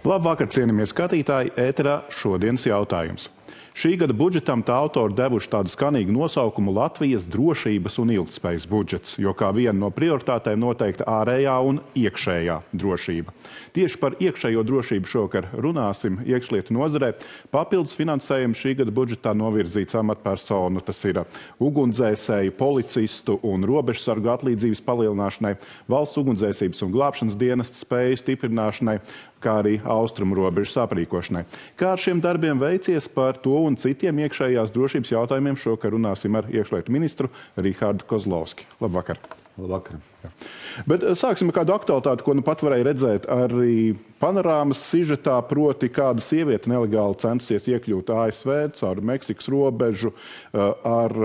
Labvakar, cienījamie skatītāji, ēterā šodienas jautājums. Šī gada budžetam tā autori devuši tādu skanīgu nosaukumu Latvijas drošības un ilgtspējas budžets, jo kā viena no prioritātēm noteikta ārējā un iekšējā drošība. Tieši par iekšējo drošību šovakar runāsim iekšlietu nozarē. Papildus finansējumu šī gada budžetā novirzīts amatpersonu, tas ir ugunsdzēsēju, policistu un robežsargu atlīdzības palielināšanai, valsts ugunsdzēsības un glābšanas dienesta spēju stiprināšanai, kā arī austrumu robežas aprīkošanai. Kā ar šiem darbiem veicies, par to un citiem iekšējās drošības jautājumiem šovakar runāsim ar iekšlietu ministru Rihardu Kozlovski. Labvakar. Labvakar. Bet sāksim ar kādu aktualitāti, ko nu pat varēja redzēt arī panorāmas sižetā, proti kāda sieviete nelegāli centusies iekļūt ASV caur Meksikas robežu ar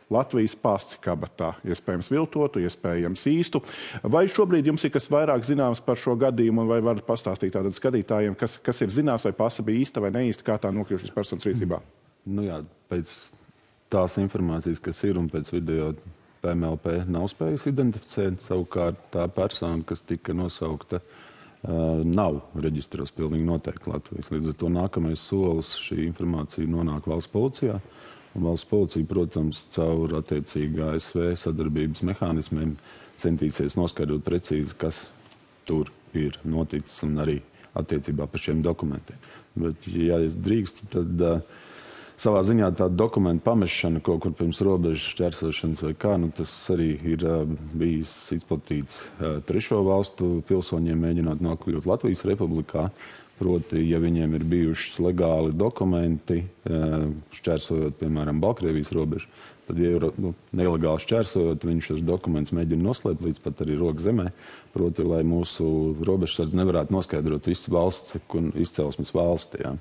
Latvijas pasi kabatā, iespējams viltotu, iespējams īstu. Vai šobrīd jums ir kas vairāk zināms par šo gadījumu, vai varat pastāstīt tātad skatītājiem, kas ir zināms, vai pasa bija īsta vai neīsta, kā tā nokļuva šīs personas rīcībā? Nu jā, pēc tās informācijas, kas ir un pēc video PMLP nav spējusi identificēt, savukārt tā persona, kas tika nosaukta, nav reģistros pilnīgi noteikti Latvijas. Līdz ar to nākamais solis šī informācija nonāk valsts policijā. Un valsts policija, protams, caur attiecīgi ASV sadarbības mehānismiem centīsies noskaidrot precīzi, kas tur ir noticis un arī attiecībā par šiem dokumentiem. Bet, ja es drīkstu, tad savā ziņā tā dokumentu pamešana kaut kur pirms robežas šķērsošanas vai kā, tas arī ir bijis izplatīts trešo valstu pilsoņiem mēģināt nokļūt Latvijas republikā. Proti, ja viņiem ir bijušas legāli dokumenti, šķērsojot, piemēram, Baltkrievijas robežu, tad, ja ir nelegāli šķērsojot, viņš šos dokumentus mēģina noslēpt līdz pat arī roka zemē. Proti, lai mūsu robežsardze nevarētu noskaidrot visu valsts izcelsmes valsti. Jā.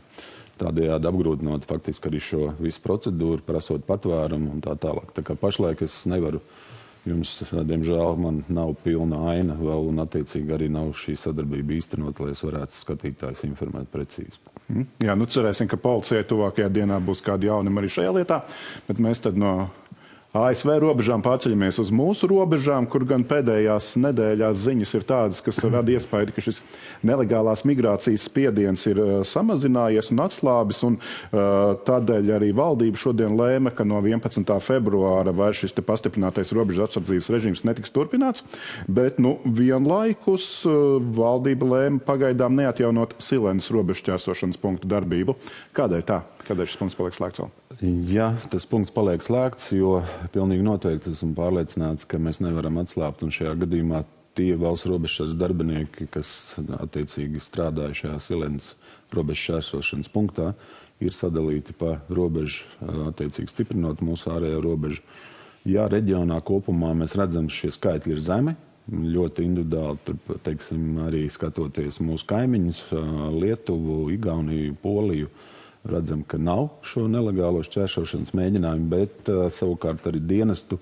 Tādējādi apgrūtinot faktiski arī šo visu procedūru, prasot patvērumu un tā tālāk. Tā kā pašlaik es nevaru jums, diemžēl, man nav pilna aina vēl, un attiecīgi arī nav šī sadarbība īstenot, lai es varētu skatītājus informēt precīzi. Jā, cerēsim, ka policijai tuvākajā dienā būs kādi jaunumi arī šajā lietā, bet mēs tad no ASV robežām pārceļamies uz mūsu robežām, kur gan pēdējās nedēļās ziņas ir tādas, kas rada iespēju, ka šis nelegālās migrācijas spiediens ir samazinājies un atslābis, un tādēļ arī valdība šodien lēma, ka no 11. februāra vairs šis pastiprinātais robežu apsardzības režīms netiks turpināts, bet vienlaikus valdība lēma pagaidām neatjaunot Silenas robežu šķērsošanas punktu darbību. Kādēļ tā? Kādēļ šis punkts paliek slēgts vēl? Jā, tas punkts paliek slēgts, jo pilnīgi noteikti esmu pārliecināts, ka mēs nevaram atslābt, un šajā gadījumā tie valsts robežsardzes darbinieki, kas attiecīgi strādāja šajā Silenas robežu šķērsošanas punktā, ir sadalīti pa robežu, attiecīgi stiprinot mūsu ārējo robežu. Jā, reģionā kopumā mēs redzam, ka šie skaitļi ir zemi, ļoti individuāli, tur, teiksim, arī skatoties mūsu kaimiņus, Lietuvu, Igauniju, Poliju, redzam, ka nav šo nelegālo šķērsošanas mēģinājumu, bet savukārt arī dienestu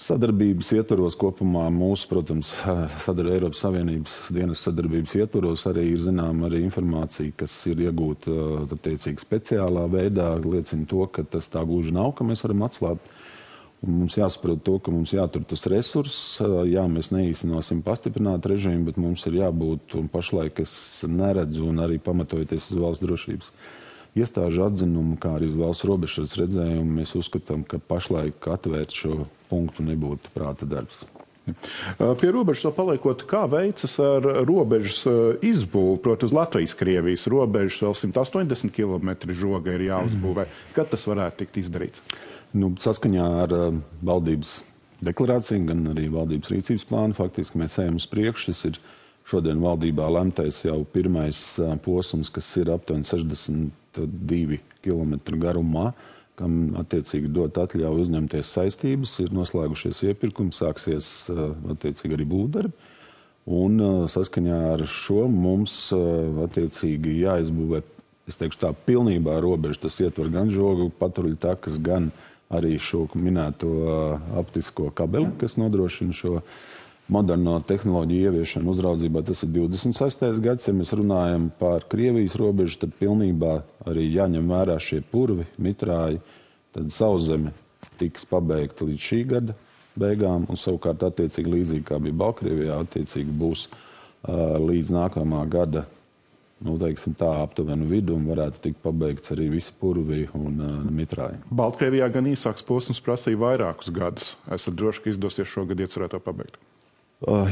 sadarbības ietvaros kopumā mūsu, protams, Eiropas Savienības dienestu sadarbības ietvaros arī ir zinām arī informācija, kas ir iegūta attiecīgi speciālā veidā, liecina to, ka tas tā gluži nav, ka mēs varam atslābt. Un mums jāsaprot to, ka mums jātur tas resurss. Jā, mēs neīstenosim pastiprināt režīmu, bet mums ir jābūt, un pašlaik es neredzu, un arī pamatojoties uz valsts drošības iestāžu atzinumu, kā arī uz valsts robežas redzējumu, mēs uzskatām, ka pašlaik atvērt šo punktu nebūtu prāta darbs. Pie robežas vēl paliekot, kā veicas ar robežas izbūvi, proti uz Latvijas-Krievijas robežas vēl 180 km žoga ir jāuzbūvē. Kad tas varētu tikt izdarīts? Saskaņā ar valdības deklarāciju, gan arī valdības rīcības plānu, faktiski mēs ejam uz priekšu. Tas ir šodien valdībā lemtais jau pirmais posms, kas ir aptuveni 62 km garumā, kam attiecīgi dot atļauju uzņemties saistības, ir noslēgušies iepirkumi, sāksies attiecīgi arī būvdarbi. Un saskaņā ar šo mums attiecīgi jāizbūvē, es teikšu tā, pilnībā robeža. Tas ietver gan žogu patruļu takas, gan arī šo minēto optisko kabeli, kas nodrošina šo moderno tehnoloģiju ieviešanu uzraudzībā. Tas ir 26. gads. Ja mēs runājam par Krievijas robežu, tad pilnībā arī jāņem vērā šie purvi, mitrāji. Tad Sauszeme tiks pabeigta līdz šī gada beigām, un savukārt attiecīgi līdzīgi kā bija Baltkrievijā, attiecīgi būs līdz nākamā gada teiksim tā, aptuvenu vidu un varētu tikt pabeigts arī visi purvi un mitrāji. Baltkrievijā gan īsāks posms prasīja vairākus gadus. Esat droši, ka izdosies šogad iecerēt to pabeigt?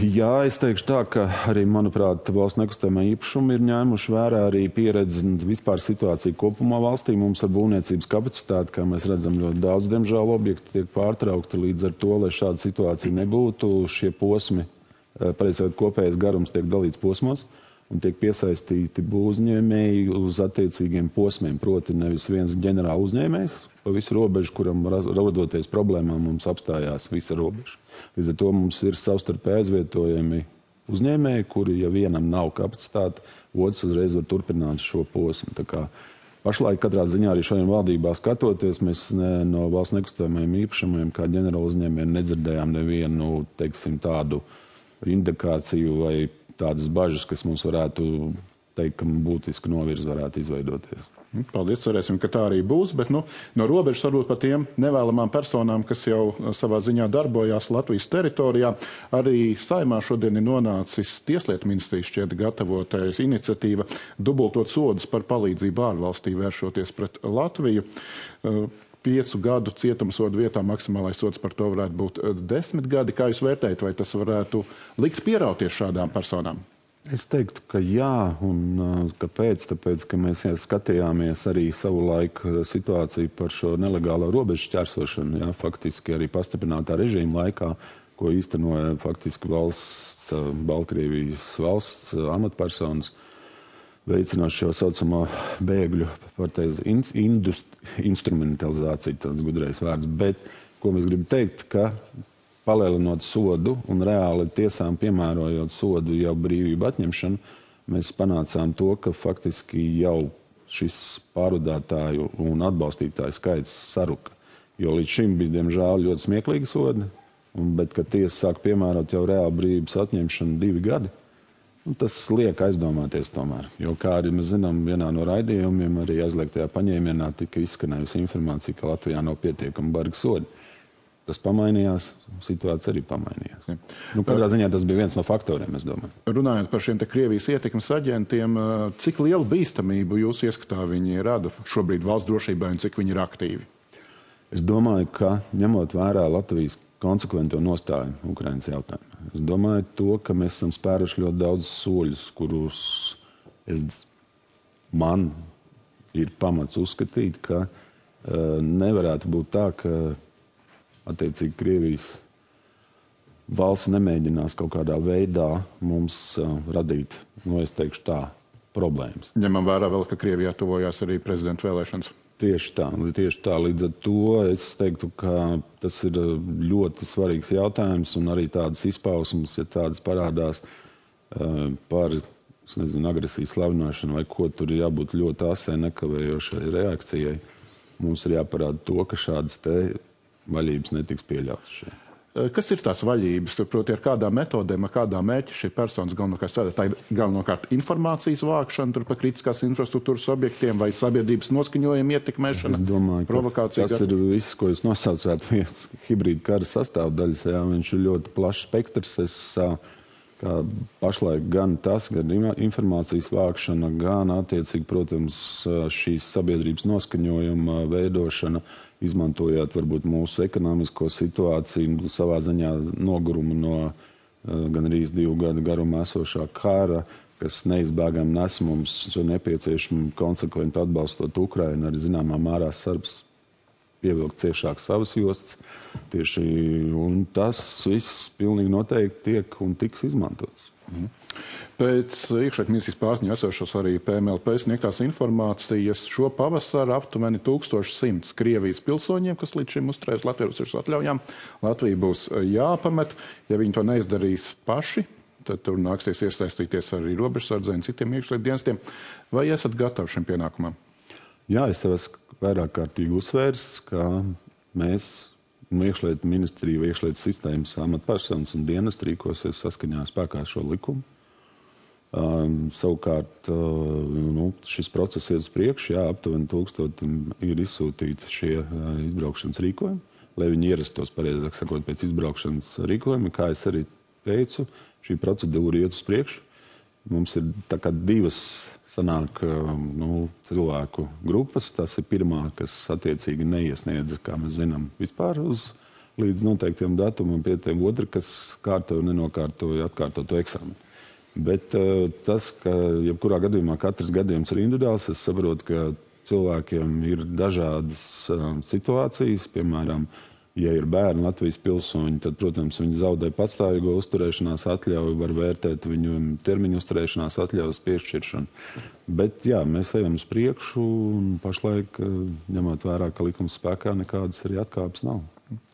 Jā, es teikšu tā, ka arī, manuprāt, valsts nekustamā īpašuma ir ņēmuši vērā arī pieredzi un vispār situāciju kopumā valstī. Mums ar būvniecības kapacitāti, kā mēs redzam, ļoti daudz, diemžēl, objekti tiek pārtraukti. Līdz ar to, lai šāda situācija nebūtu, šie posmi, pareizāk kopējais garums tiek dalīts posmos un tiek piesaistīti būvuzņēmēji uz attiecīgiem posmiem. Proti nevis viens ģenerāla uzņēmējs pa visu robežu, kuram rodoties problēmām mums apstājās visa robeža. Līdz ar to mums ir savstarpēji aizvietojami uzņēmēji, kuri, ja vienam nav kapacitāte, otrs uzreiz var turpināt šo posmu. Tā kā pašlaik katrā ziņā arī šodien valdībā skatoties, mēs no valsts nekustamajiem īpašumiem kā ģenerāla uzņēmējiem nedzirdējām nevienu, teiksim, tādu indikāciju vai tādas bažas, kas mums varētu teikt, ka būtiski novirzi varētu izveidoties. Paldies, cerēsim, ka tā arī būs, bet no robežas varbūt par tiem nevēlamām personām, kas jau savā ziņā darbojās Latvijas teritorijā. Arī Saeimā šodien ir nonācis Tieslietu ministrijas šķiet gatavotais iniciatīva dubultot sodus par palīdzību ārvalstī vēršoties pret Latviju. 5 gadu cietumsodu vietā maksimālais sods par to varētu būt 10 gadi. Kā jūs vērtējat, vai tas varētu likt pierauties šādām personām? Es teiktu, ka jā, un kāpēc? Tāpēc, ka mēs skatījāmies arī savulaik situāciju par šo nelegālo robežu šķērsošanu, jā, faktiski arī pastiprinātā režīma laikā, ko īstenoja faktiski Baltkrievijas valsts amatpersonas, veicināt šo saucamo bēgļu instrumentalizāciju, tāds gudrais vārds. Bet, ko mēs gribam teikt, ka palielinot sodu un reāli tiesām piemērojot sodu jau brīvību atņemšanu, mēs panācām to, ka faktiski jau šis pārvadātāju un atbalstītāju skaits saruka. Jo līdz šim bija, diemžēl, ļoti smieklīgi sodi, bet, kad tiesa sāk piemērot jau reāli brīvības atņemšanu 2 gadi, tas liek aizdomāties tomēr. Jo, kā arī mēs zinām, vienā no raidījumiem arī aizliegtajā paņēmienā tika izskanējusi informācija, ka Latvijā nav pietiekami bargi sodi. Tas pamainījās, situācija arī pamainījās. Katrā ziņā tas bija viens no faktoriem, es domāju. Runājot par šiem te Krievijas ietekmes aģentiem, cik lielu bīstamību jūs ieskatā viņi rada šobrīd valsts drošībai un cik viņi ir aktīvi? Es domāju, ka ņemot vērā Latvijas konsekvento nostāju Ukrainas jautājumā. Es domāju to, ka mēs esam spēruši ļoti daudz soļus, kurus man ir pamats uzskatīt, ka nevarētu būt tā, ka attiecīgi Krievijas valsts nemēģinās kaut kādā veidā mums radīt, es teikšu tā, problēmas. Ņemam vērā vēl, ka Krievijā tuvojās arī prezidenta vēlēšanas. Tieši tā. Līdz ar to es teiktu, ka tas ir ļoti svarīgs jautājums un arī tādas izpausmes, ja tādas parādās par, agresijas slavināšanu vai ko, tur ir jābūt ļoti asai nekavējošai reakcijai. Mums ir jāparāda to, ka šādas te vaļības netiks pieļautas šeit. Kas ir tās vaļības? Proti, ar kādām metodēm, ar kādām mērķi šī personas galvenokārt strādā? Tā ir galvenokārt informācijas vākšana tur par kritiskās infrastruktūras objektiem vai sabiedrības noskaņojuma ietekmēšana? Es domāju, provokācija. Tas ir viss, ko jūs nosaucāt, viens hibrīda kara sastāvdaļas. Jā, viņš ir ļoti plašs spektrs. Kā pašlaik gan tas, gan informācijas vākšana, gan attiecīgi, protams, šīs sabiedrības noskaņojuma veidošana, izmantojot varbūt mūsu ekonomisko situāciju, savā ziņā nogurumu no gan arī 2 gadu garumā esošā kara, kas neizbēgami nes mums nepieciešami konsekventi atbalstot Ukrainu, arī zināmā mērā Serbs pievilkt ciešāk savas jostas. Un tas viss pilnīgi noteikti tiek un tiks izmantots. Pēc iekšlietu ministrijas pārziņā esošos arī PMLP sniegtās informācijas šo pavasaru aptuveni 1100 Krievijas pilsoņiem, kas līdz šim uzturējas Latvijas atļaujām. Latvija būs jāpamet. Ja viņi to neizdarīs paši, tad tur nāksies iesaistīties arī robežsardzei un citiem iekšlietu dienestiem. Vai esat gatavi šim pienākumam? Jā, es esmu vairāk kārtīgi uzsvērs, ka mēs iekšlietu ministrija vai iekšlietu sistēmas amatpersonas un dienesti rīkosies saskaņā spēkā šo likumu. Savukārt šis process iet uz priekšu, jā, aptuveni 1000 ir izsūtīti šie izbraukšanas rīkojumi, lai viņi ierastos, pareizāk sakot, pēc izbraukšanas rīkojumi. Kā es arī teicu, šī procedūra iet uz priekšu. Mums ir tā kā 2 sanāk cilvēku grupas. Tas ir pirmā, kas attiecīgi neiesniedza, kā mēs zinām, vispār līdz noteiktiem datumam pie tiem otri, kas kārtoja un nenokārtoja atkārtotu eksāmenu. Bet tas, ka jebkurā gadījumā katrs gadījums ir individuāls, es saprotu, ka cilvēkiem ir dažādas situācijas, piemēram, ja ir bērni Latvijas pilsoņi, tad, protams, viņi zaudē patstāvīgo uzturēšanās atļauju, var vērtēt viņu termiņu uzturēšanās atļaujas piešķiršanu. Bet, jā, mēs ejam uz priekšu un pašlaik, ņemot vērā, ka likums spēkā, nekādas arī atkāpes nav.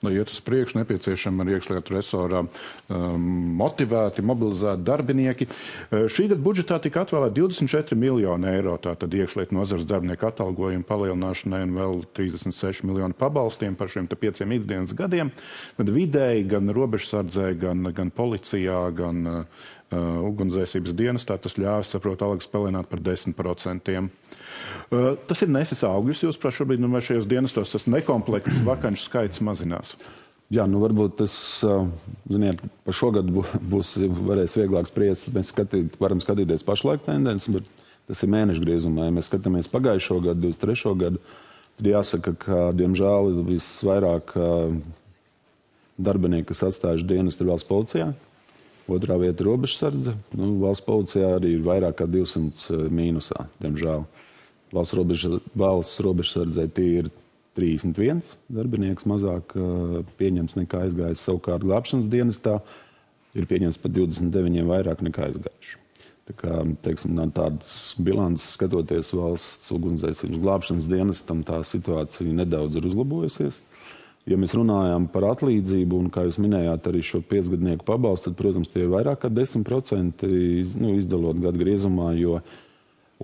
Lai iet uz priekšu, nepieciešami ar iekšlietu resorā motivēti, mobilizēti darbinieki. Šī gada budžetā tika atvēlēti 24 miljoni eiro, tātad iekšlietu nozares darbinieku atalgojumu palielināšanai un vēl 36 miljoni pabalstiem par šiem 5 ikdienas gadiem. Tad vidēji gan robežsardzē, gan policijā, gan ugunsdzēsības dienestā tas ļāvis, saprot, algas palielināt par 10%. Tas ir nesis augļus, jūsuprāt, šobrīd, vai šajos dienestos tas nekomplekts vakanču skaits mazinās? Jā, varbūt tas, ziniet, par šogad varēs vieglāk spriest. Mēs varam skatīties pašlaik tendences, bet tas ir mēnešu griezumā. Ja mēs skatāmies pagājušo gadu, 23. gadu, tad jāsaka, ka, diemžēl, visvairāk darbinieki, kas atstājuši dienestu, ir valsts policijā. Otrā vieta ir robežsardze. Valsts policijā arī ir vairāk kā 200 mīnusā, diemžēl. Valsts robežsardzē tie ir 31 darbinieks mazāk pieņems nekā aizgājis. Savukārt glābšanas dienestā ir pieņems pat 29 vairāk nekā aizgājuši. Tā kā, teiksim, tādas bilances skatoties valsts ugunsdzēsības glābšanas dienestam, tā situācija nedaudz ir uzlabojusies. Ja mēs runājam par atlīdzību, un, kā jūs minējāt, arī šo 5-gadnieku pabalstu, tad, protams, tie ir vairāk kā 10% izdalot gadu griezumā,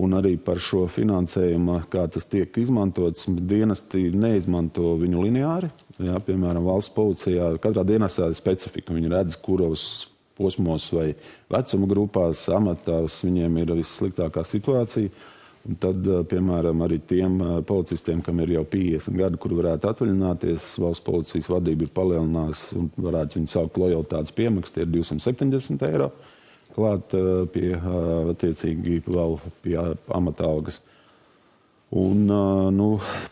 un arī par šo finansējumu, kā tas tiek izmantots, dienesti neizmanto viņu lineāri. Jā, piemēram, valsts policijā katrā dienestā ir specifika. Viņi redz, kuros posmos vai vecuma grupās, amatās viņiem ir vissliktākā situācija. Un tad, piemēram, arī tiem policistiem, kam ir jau 50 gadi, kur varētu atvaļināties, valsts policijas vadība ir palielinājusi un varētu viņu saukt lojalitātes piemaksu, tie ir 270 eiro klāt pie, attiecīgi, vēl pie amata algas. Un,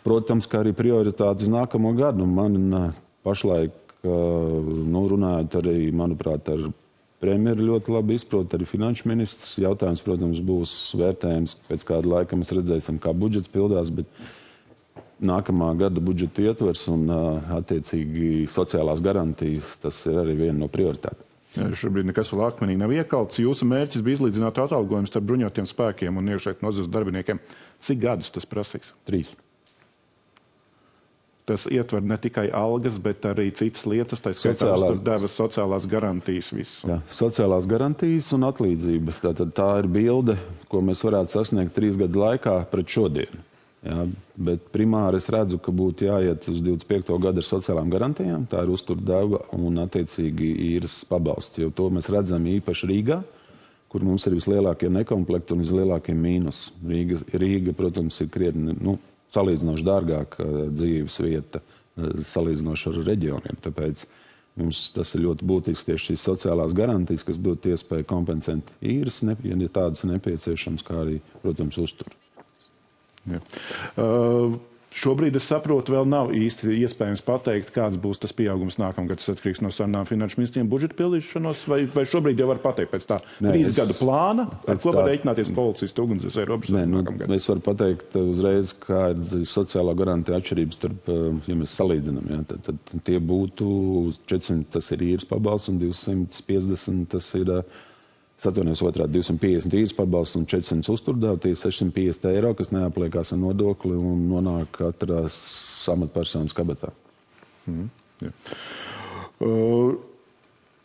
protams, ka arī prioritāte uz nākamo gadu. Man pašlaik, runājot arī, manuprāt, ar premjeru ļoti labi izprot, arī finanšu ministrs. Jautājums, protams, būs vērtējums. Pēc kāda laika mēs redzēsim, kā budžets pildās, bet nākamā gada budžeta ietvers un attiecīgi sociālās garantijas, tas ir arī viena no prioritātēm. Šobrīd nekas vēl akmenīgi nav iekalts. Jūsu mērķis bija izlīdzināt atalgojumus starp bruņotiem spēkiem un iekšlietu nozares darbiniekiem. Cik gadus tas prasīs? 3. Tas ietver ne tikai algas, bet arī citas lietas, tā skaitā devas sociālās garantijas visu. Jā, sociālās garantijas un atlīdzības. Tā ir bilde, ko mēs varētu sasniegt 3 gadu laikā pret šodienu. Jā, bet primāri es redzu, ka būtu jāiet uz 25. gadu ar sociālām garantijām. Tā ir uzturdeva un attiecīgi īres pabalsts. Jo to mēs redzam īpaši Rīgā, kur mums ir vislielākie nekomplekti un vislielākie mīnus. Rīga, protams, ir krietni, salīdzinoši dārgāka dzīves vieta, salīdzinoši ar reģioniem. Tāpēc mums tas ir ļoti būtisks tieši šīs sociālās garantijas, kas dod iespēju kompensēt īres, ja tādas nepieciešams, kā arī, protams, uztur. Ja. Šobrīd, es saprotu, vēl nav īsti iespējams pateikt, kāds būs tas pieaugums nākamgad. Tas atkarīgs no sarunām finanšu ministriem budžeta pildīšanos, vai šobrīd jau var pateikt pēc tā 3 gadu plāna, ar ko var rēķināties policisti, ugunsdzēsēji, robežsargi nākamgad? Es varu pateikt uzreiz, kā ir sociālā garantija atšķirības starp, ja mēs salīdzinām, ja, tad tie būtu 400, tas ir īres pabalsts, un 250, tas ir... Es atvainojos otrādi 250 īres pabalsts un 400 uzturdeva, tie 650 eiro, kas neapliekās ar nodokli un nonāk katrās amatpersonas kabatā. Ja.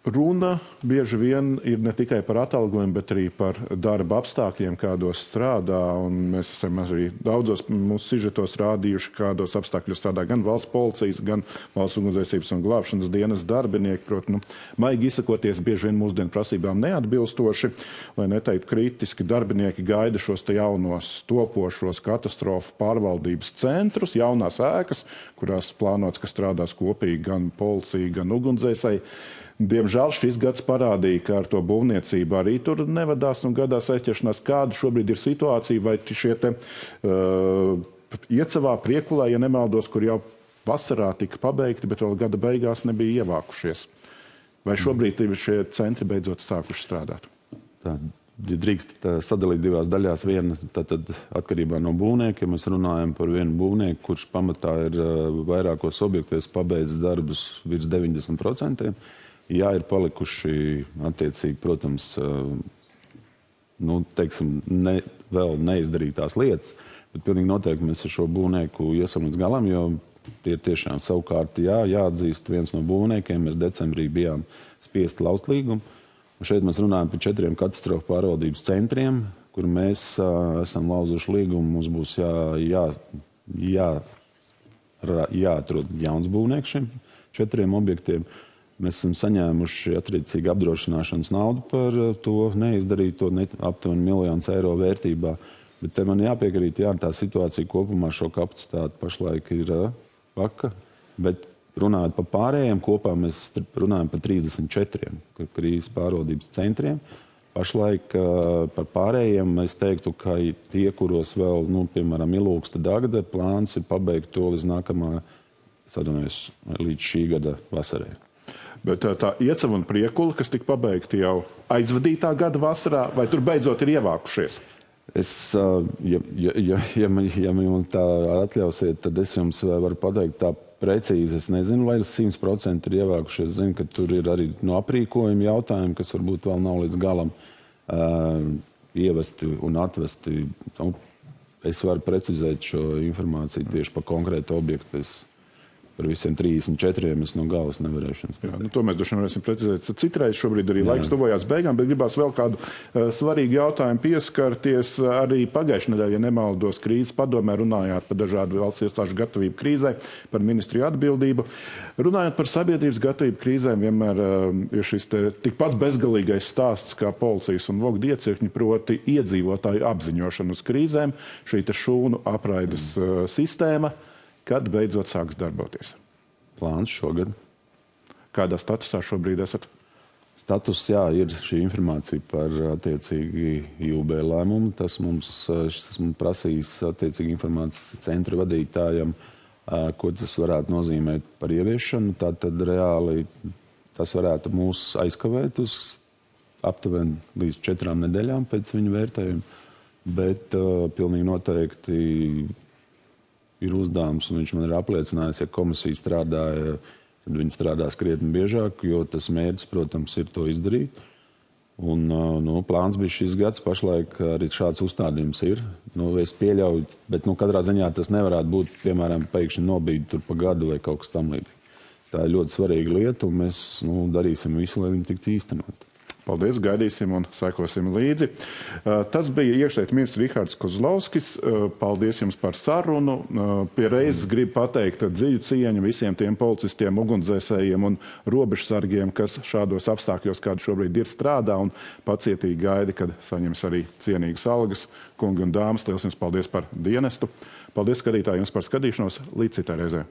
Runa bieži vien ir ne tikai par atalgojumu, bet arī par darba apstākļiem, kādos strādā. Un mēs esam arī daudzos mūsu sižetos rādījuši, kādos apstākļos strādā gan valsts policijas, gan valsts ugunsdzēsības un glābšanas dienas darbinieki. Proti, maigi izsakoties, bieži vien mūsdienu prasībām neatbilstoši, lai neteiktu kritiski, darbinieki gaida šos te jaunos topošos katastrofu pārvaldības centrus, jaunās ēkas, kurās plānots, ka strādās kopīgi gan policija, gan ugunsdzēsēji. Diemžēl šis gads parādīja, ka ar to būvniecību arī tur nevadās un gadās aizķeršanās. Kāda šobrīd ir situācija, vai šie te Iecavā, Priekulē, ja nemaldos, kur jau vasarā tika pabeigti, bet vēl gada beigās nebija ievākušies? Vai šobrīd šie centri beidzot sākuši strādāt? Tā drīkst sadalīt divās daļās. Viena tad atkarībā no būvnieka. Ja mēs runājam par vienu būvnieku, kurš pamatā ir vairākos objektos pabeidzis darbus virs 90%. Jā, ir palikuši attiecīgi, protams, teiksim, vēl neizdarītās lietas, bet pilnīgi noteikti mēs ar šo būvnieku iesam līdz galam, jo tie tiešām savukārt jāatzīst viens no būvniekiem. Mēs decembrī bijām spiesti laust līgumu. Un šeit mēs runājam par 4 katastrofu pārvaldības centriem, kur mēs esam lauzuši līgumu. Mums būs jāatrod jauns būvnieks šiem 4 objektiem. Mēs esam saņēmuši attiecīgi apdrošināšanas naudu par to neizdarīto aptuveni 1 000 000 eiro vērtībā. Bet te man jāpiekrīt, tā situācija kopumā šo kapacitāti pašlaik ir vaka, bet runājot par pārējiem, kopā mēs runājam par 34 krīzes pārvaldības centriem. Pašlaik par pārējiem es teiktu, ka tie, kuros vēl, piemēram, Ilūksta Dagda, plāns ir pabeigt to līdz šī gada vasarai. Bet tā Iecava un Priekula, kas tika pabeigti jau aizvadītā gada vasarā, vai tur beidzot ir ievākušies? Ja man tā atļausiet, tad es jums varu pateikt tā precīzi. Es nezinu, vai 100% ir ievākušies. Es zinu, ka tur ir arī no aprīkojuma jautājumi, kas varbūt vēl nav līdz galam ievesti un atvesti. Es varu precizēt šo informāciju tieši par konkrētu objektu. Par visiem 34 es no galvas nevarēšu. To mēs droši vien varēsim precizēt. Citreiz šobrīd arī laiks tuvojās beigām, bet gribās vēl kādu svarīgu jautājumu pieskarties. Arī pagājušajā nedēļā, ja nemaldos, krīzes padomē runājāt par dažādu valsts iestāžu gatavību krīzē, par ministriju atbildību. Runājot par sabiedrības gatavību krīzēm, vienmēr ir šis tikpat bezgalīgais stāsts kā policijas un vogdu iecirkņi, proti iedzīvotāju apziņošanu uz krīzēm, šī šūnu apraides sistēma. Kad beidzot sāks darboties? Plāns šogad. Kādā statusā šobrīd esat? Status, ir šī informācija par attiecīgi IUB lēmumu. Tas mums prasīs attiecīgi informācijas centra vadītājam, ko tas varētu nozīmēt par ieviešanu. Tātad reāli tas varētu mūs aizkavēt uz aptuveni līdz 4 nedēļām pēc viņa vērtējuma. Bet pilnīgi noteikti ir uzdevums, un viņš man ir apliecinājis, ja komisija strādāja, tad viņi strādās krietni biežāk, jo tas mērķis, protams, ir to izdarīt. Un plāns bija šis gads, pašlaik arī šāds uzstādījums ir. Es pieļauju, bet katrā ziņā tas nevarētu būt, piemēram, pēkšņi nobīdi tur pa gadu vai kaut kas tam līdzīgi. Tā ir ļoti svarīga lieta, un mēs darīsim visu, lai viņi tiktu īstenot. Paldies, gaidīsim un sekosim līdzi. Tas bija iekšlietu ministrs Rihards Kozlovskis. Paldies jums par sarunu. Pie reizes gribu pateikt dziļu cieņu visiem tiem policistiem, ugunsdzēsējiem un robežsargiem, kas šādos apstākļos, kādi šobrīd ir, strādā un pacietīgi gaida, kad saņems arī cienīgas algas. Kungi un dāmas, liels jums paldies par dienestu. Paldies, skatītāji, jums par skatīšanos. Līdz citai reizei.